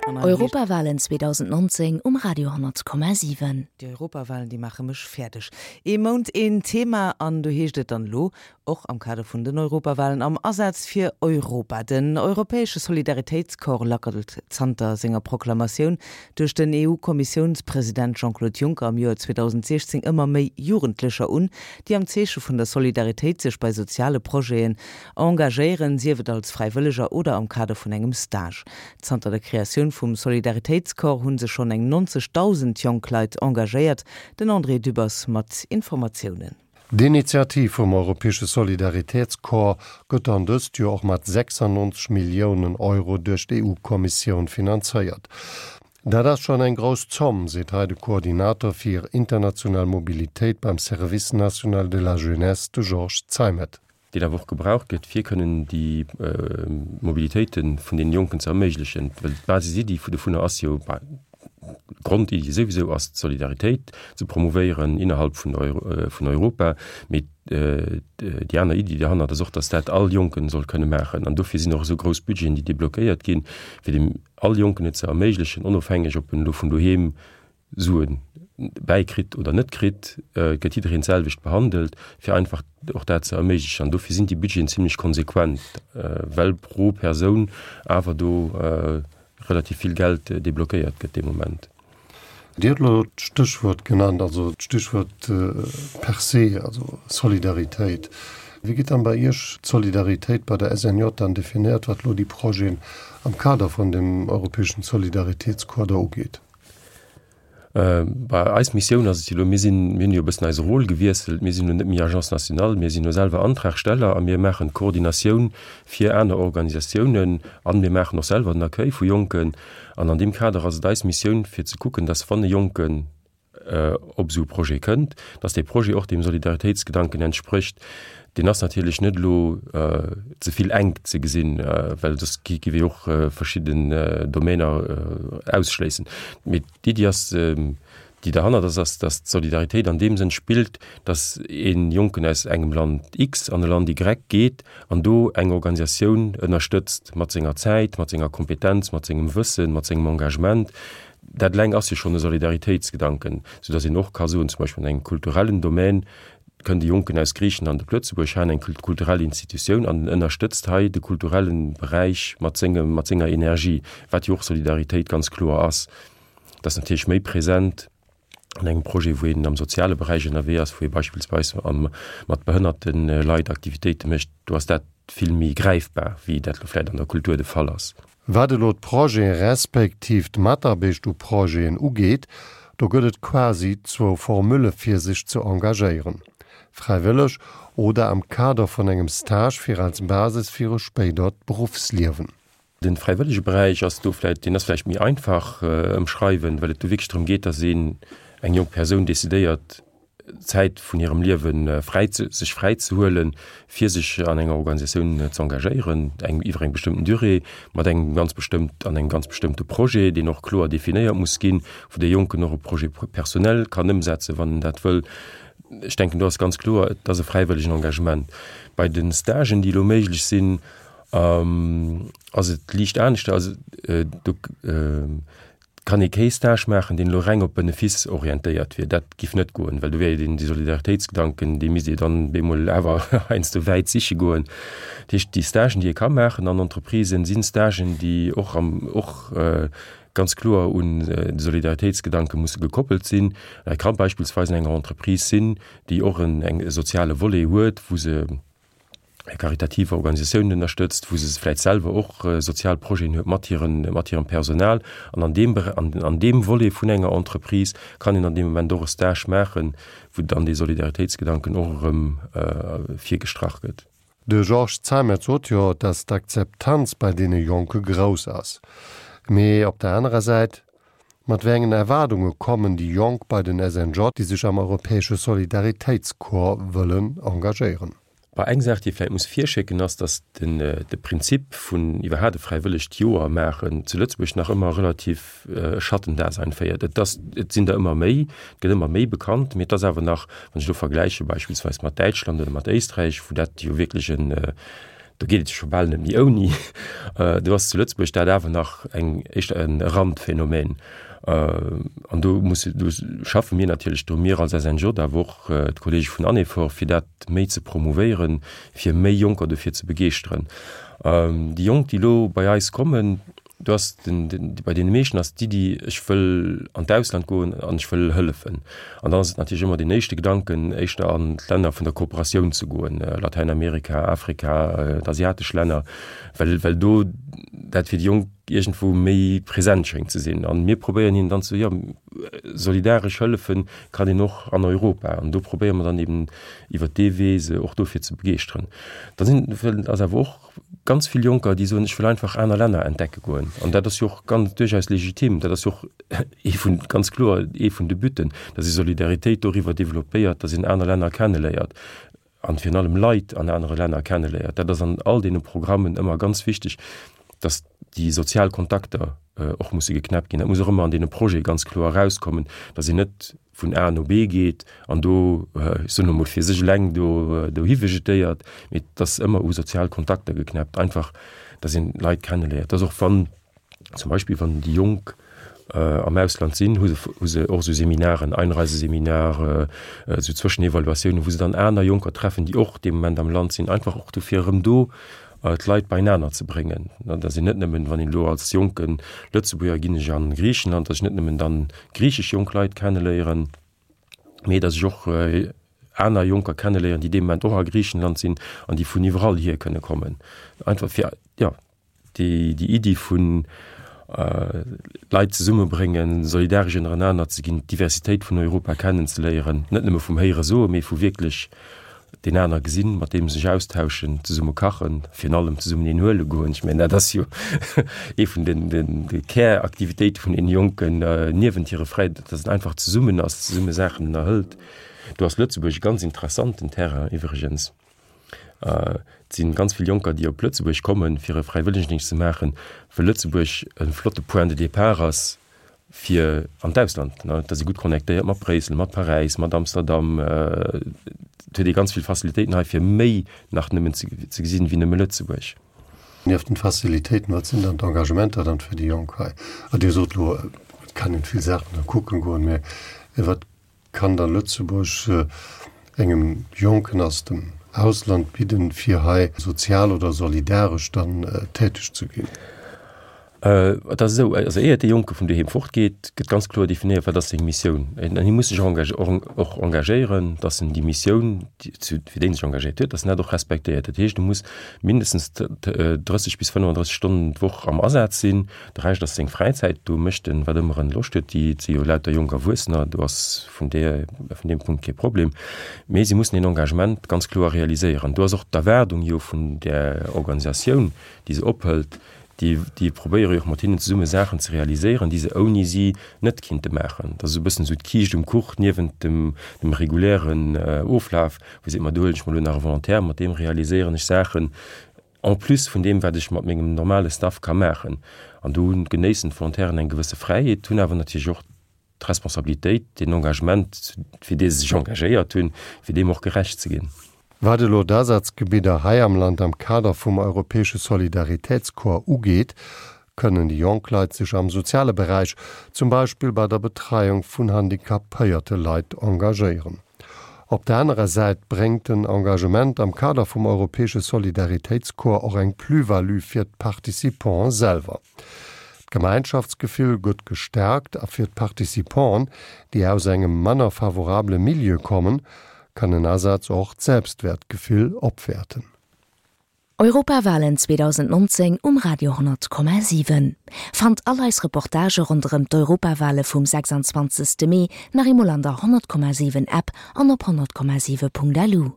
Europawalen 2019 um Radio 10,7. Déi Europawalen, déi maache mech fäerdeg. Ee Mount, een Thema, an do heescht et dann elo, och am Kader vun den Europawalen, am Asaz fir Europa. Den europäesche Solidaritéitscorps lackelt zanter senger Proklamatioun duerch den EU-Kommissiounspresident Jean-Claude Juncker am Joer 2016 ëmmer méi Jugendlecher un, déi am Zeeche vun der Solidaritéit sech bei soziale Projeten engagéieren, sief et als Fräiwëlleger oder am Kader vun engem Stage. Zanter der Kreatioun vum Solidaritéitscorps hu sech schonn eng 90.000 jonk Leit engagéiert. Den André Dübbers mat Informatiounen. D'Initiativ vum Europäesche Solidaritätscorps gëtt dann dëst Joer och mat 96 Milliounen Euro duerch d'EU-Kommissioun finanzéiert. Dat ass schonn eng grouss Zomm, seet hei de Koordinator fir international Mobilitéit beim Service national de la jeunesse, de Georges Zeimet. deen awer och gebraucht gëtt, fir kënnen déi Mobilitéite vun deene Jonken ze erméiglechen, well d'Basisiddi dovunner ass jo, d'Grondiddi souwisou ass, d'Solidaritéit ze promouvéieren innerhalb vun vun Europa, mee déi aner Iddi derhannert ass och, datt dat all Jonken soll kënne maachen. An dofir sinn och esou grouss Budgeten, déi deblockéiert ginn, fir dem all Jonken et ze erméiglechen, onofhängeg ob en elo vun doheem Suen bäikritt oder net kritt, gëtt jiddereen d'selwecht behandelt, fir einfach och dat ze erméiglechen. An dofir sinn déi Budgeten zimlech konsequent, well pro Persoun awer do relativ vill Geld deblockéiert gëtt dee Moment. Dir hutt elo d'Stéchwuert genannt, also d'Stichwuert per se, also Solidaritéit. Wéi gëtt dann bei Iech d'Solidaritéit bei der SNJ dann definéiert, wat elo déi Projeten am Kader vun dem europäeschen Solidaritéitscorps da ugeet? Bei eis Missioun ass et jo elo, mir sinn, mir hunn jo e bëssen eise Rôle gewiesselt, mir sinn elo net méi Agence nationale, mir sinn elo selwer Antragsteller a mir maachen d'Koordinatioun fir aner Organisatiounen an mir maachen och selwer den Accueil vu Jonken. An an deem Kader ass et eis Missioun fir ze kucken, dass wann e Jonken op esou e Projet kënnt, dass dee Projet och deem Solidaritéitsgedanken entsprécht. Deen ass natierlech net elo ze vill enk ze gesinn, well soss gi wir jo och verschidden Domainer ausschléissen. Mee d'Iddi ass, déi derhannert ass, ass, dass d'Solidaritéit an deem Sënn spillt, dass ee Jonken aus engem Land X an e Land Y geet an do eng Organisatioun ënnerstëtzt mat senger Zäit, mat senger Kompetenz, mat sengem Wëssen, mat sengem Engagement. Dat eleng ass jo schonn e Solidaritéitsgedanken, soudass een och ka soen, zum Beispill an engem kulturellen Domän kënnt e Jonken aus Griichenland op Lëtzebuerg, hat eng kulturell Institutioun an en ënnerstëtzt hei de kulturelle Beräich mat sengem, mat senger Energie, wat jo och Solidaritéit ganz kloer ass. Dat ass natierlech méi present an engem Projet, wou een am soziale Beräich ënnerwee ass, wou ee beispillsweis am, mat behënnerte Leit Aktivitéite mécht. Do ass dat vill méi gräifbar, wéi dat elo vläicht an der Kultur de Fall ass. Wat elo d'Projete respektiv d'Mataarbecht u Projeten ugeet, do gëtt et quasi zwou Formule fir sech ze engagéieren, fräiwëlleg oder am Kader vun engem Stage fir als Basis fir e spéidert Beruffsliewen. De fräiwëllege Beräich ass do vläicht, deen ass vläicht méi einfach ëmschreiwen, well et do wierklech drëm geet, datt een, eng jonk Persoun decidéiert, Zäit vun hirem Liewe fräi ze, sech fräi ze huelen, fir sech an enger Organisatioun ze engagéieren, eng iwwer eng bestëmmten Durée, mat engem ganz bestëmmt, an engem ganz bestëmmte Projet, deen och kloer definéiert muss ginn, wou dee Jonken och e Projet personnel kann ëmsetzen, wann en dat wëll. Ech denken, do ass ganz kloer, et ass e fräiwëllegen Engagement. Bei de Stagen, déi elo méiglech sinn, ass et liicht aneschter. Also do kann ee kee Stage maachen, deen elo reng op Benefice orientéiert wier. Dat giff net goen, well do wier jo dee Solidaritéitsgedanken, dee misst ee dann bemol awer heiansdo wäit siche goen. Dat heescht, déi Stagen, déi ee ka maachen an Entreprisen, si Stagen, déi och am, och ganz kloer un de Solidaritéitsgedanke musse gekoppelt sinn. Dat ka beispillsweis an enger Entreprise sinn, déi och en, eng, e soziale Volet huet, wou se, karitativ Organisatiounen ënnerstëtzt, wou se vläit selwer och sozial Projeten huet mat hiren, mat hirem Personal. An an deem Bere-, an, an deem Volet vun enger Entreprise kann een an deem Moment och e Stage maachen, wou dann dee Solidaritéitsgedanken och erëm virgestrach gëtt. De Georges Zeimet sot jo, datt d'Akzeptanz bei deene Jonke grouss ass. Mee op der anerer Säit, Mat wéi engen Erwaardunge kommen déi Jonk bei den SNJ, déi sech am Europäesche Solidaritéitscorps wëllen engagéieren? Bah, eng Saach, déi ee vläicht muss virschécken, ass, datt den, de Prinzip vun iwwerhaapt e fräiwëllegt Joer maachen zu Lëtzebuerg nach ëmmer relativ e Schattendasein féiert. Et ass, et sinn der ëmmer méi, et gëtt ëmmer méi bekannt, mee et ass awer nach, wann ech elo vergläiche beispillsweis mat Däitschland oder mat Éisträich, wou dat jo wierklech en. Do geet et jo scho bal net méi ouni. Do ass zu Lëtzebuerg dat awer nach eng éischter e Randphänomen. An do musse, do schaffe mir natierlech dru, mir als SNJ, awer och d'Kollege vun Anefor, fir dat méi ze promouvéieren, fir méi Jonker dofir ze begeeschteren. Déi Jonk, déi elo bei eis kommen, Do ass den, den, bei deene meeschten ass d'Iddi, ech wëll an d'Ausland goen an ech wëll hëllefen. An dann ass et natierlech ëmmer deen éischte Gedanken, éischter an d'Länner vun der Kooperatioun ze goen, Latäinamerika, Afrika, d'asiatesch Länner, well, well do dat fir déi Jonk iergendwou méi present schéngt ze sinn. An mir probéieren hinnen dann ze soen, jo, solidaresch hëllefen kann een och an Europa. An do probéiere mer dann eben iwwert dee Wee se och dofir ze begeeschteren. Da sinn, ass awer och ganz vill Jonker, déi soen, ech wëll einfach aner Länner entdecke goen. An dat ass jo och ganz duerchaus legitim. Dat ass jo och ee vun, ganz kloer ee vun de Butten, datt ee Solidaritéit doriwwer developpéiert, datt een aner Länner kenneléiert an virun allem Leit an anere Länner kenneléiert. Dat ass an all deene Programmen ëmmer ganz wichteg, datt déi sozial Kontakter och musse geknäppt ginn. Dat muss och ëmmer an deene Projete ganz kloer erauskommen, datt een net vun A no B geet an do, ech soen elo mol, fir sech eleng do dohi vegetéiert, mee et ass ëmmer u sozial Kontakter geknäppt, einfach datt een Leit kenneléiert. Dass och wann zum Beispill wann déi Jonk am Ausland sinn, hu se hu se och esou Seminaren, Einreiseseminar, esou Zwëschenevaluatiounen, wou se dann aner Jonker treffen, déi och dee Moment am Land sinn, einfach och dofir erëm do d'Leit beienaner ze bréngen. Datt een net nëmmen, wann een elo als jonke Lëtzebuerger ginn ech a Griichenland, datt ech net nëmmen dann griichesch jonk Leit kenneléieren, mee datt ech och aner Jonker kenneléieren, déi dee Moment och a Griichenland sinn an déi vun iwwerall hier kënne kommen. Einfach fir, jo, déi Iddi vun Leit zesummebréngen, solidaresch ënnerenaner ze ginn, d'Diversitéit vun Europa kennenzeléieren, net nëmme vum Héiere soen, mee vu wierklech deen aner gesinn, mat deem sech austauschen, zesumme kachen, virun allem zesummen een huele goen. Ech mengen, dat ass jo ee vun den, den, de Käraktivitéite vun den Jonken niewent hire Fräi, datt een einfach zesummen ass, zesumme Saachen ënnerhëlt. Do ass Lëtzebuerg e ganz interessanten Terrain iwwregens. Et si ganz vill Jonker, déi op Lëtzebuerg kommen, fir e Fräiwëllegendéngscht ze maachen, well Lëtzebuerg e flotte Point de départ ass fir an d'Ausland. Et ass ee gutt connectéiert mat Bréissel, mat Paräis, mat Amsterdam. Et huet ee ganz vill Facilitéiten hei, fir méi nach nëmmen ze gesinn, wéi nëmme Lëtzebuerg. Nieft den Facilitéiten, wat sinn dann d'Engagementer dann fir déi Jonk hei? Dir sot elo, et kann een vill Saachen da kucken goen, mä wat Kann da Lëtzebuerg engem Jonken aus dem Ausland bidden, fir hei sozial oder solidaresch dann täteg ze ginn? Et ass esou, also éiert dee Jonke vun doheem fortgeet, gëtt ganz kloer definéiert, wat ass seng Missioun. An hie muss sech och engagéieren, datt en déi Missioun, fir déi en sech engagéiert huet, datt en dat och respektéiert. Dat heescht, e muss mindestens 30 bis 35 Stonnen d'Woch am Asaz sinn. De Rescht ass seng Fräizäit, do mécht en wat ëmmer en Loscht huet. Déi si jo lauter jonk Erwuessener, do ass vun där, vun deem Punkt kee Problem. Mee si mussen een Engagement ganz kloer realiséieren. Do ass och d'Erwaardung jo vun där Organisatioun, déi se ophëlt, déi, déi probéiere jo och mat hinnen zesumme Saachen ze realiséieren, déi se ouni si net kinnte maachen. Dat ass esou e bëssen esou d'Kiischt um Kuch niewent dem, dem regulären Oflaf, wou seet, ma do huelen ech mer elo nach e Volontaire, mat deem realiséieren ech Saachen, En plus vun deem, wat ech mat mengem normale Staff ka maachen. An do genéissen d'Volontairen eng gewësse Fräiheet, hunn awer natierlech och d'Responsabilitéit, deen Engagement, fir dee se sech engagéiert hunn, fir deem och gerecht ze ginn. Wat elo d'Asazgebidder hei am Land am Kader vum Europäesche Solidaritätscorps ugeet, kënnen déi jonk Leit sech am soziale Beräich, zum Beispill bei der Betreiung vun handicapéierte Leit, engagéieren. Op der anerer Säit bréngt den Engagement am Kader vum Europäesche Solidaritéitscorps och eng Plus-value fir d'Participanten selwer. D'Gemeinschaftsgefill gëtt gestärkt a fir d'Participanten, déi aus engem manner favorabele Milieu kommen, kann en Asaz och d'Selbstwäertgefill opwäerten. Europawalen 2019 um Radio 10,7. Fannt all eis Reportagë ronderëm d'Europawale vum 26. Mee nach eemol an der 100,7 App an op 100,7.lu.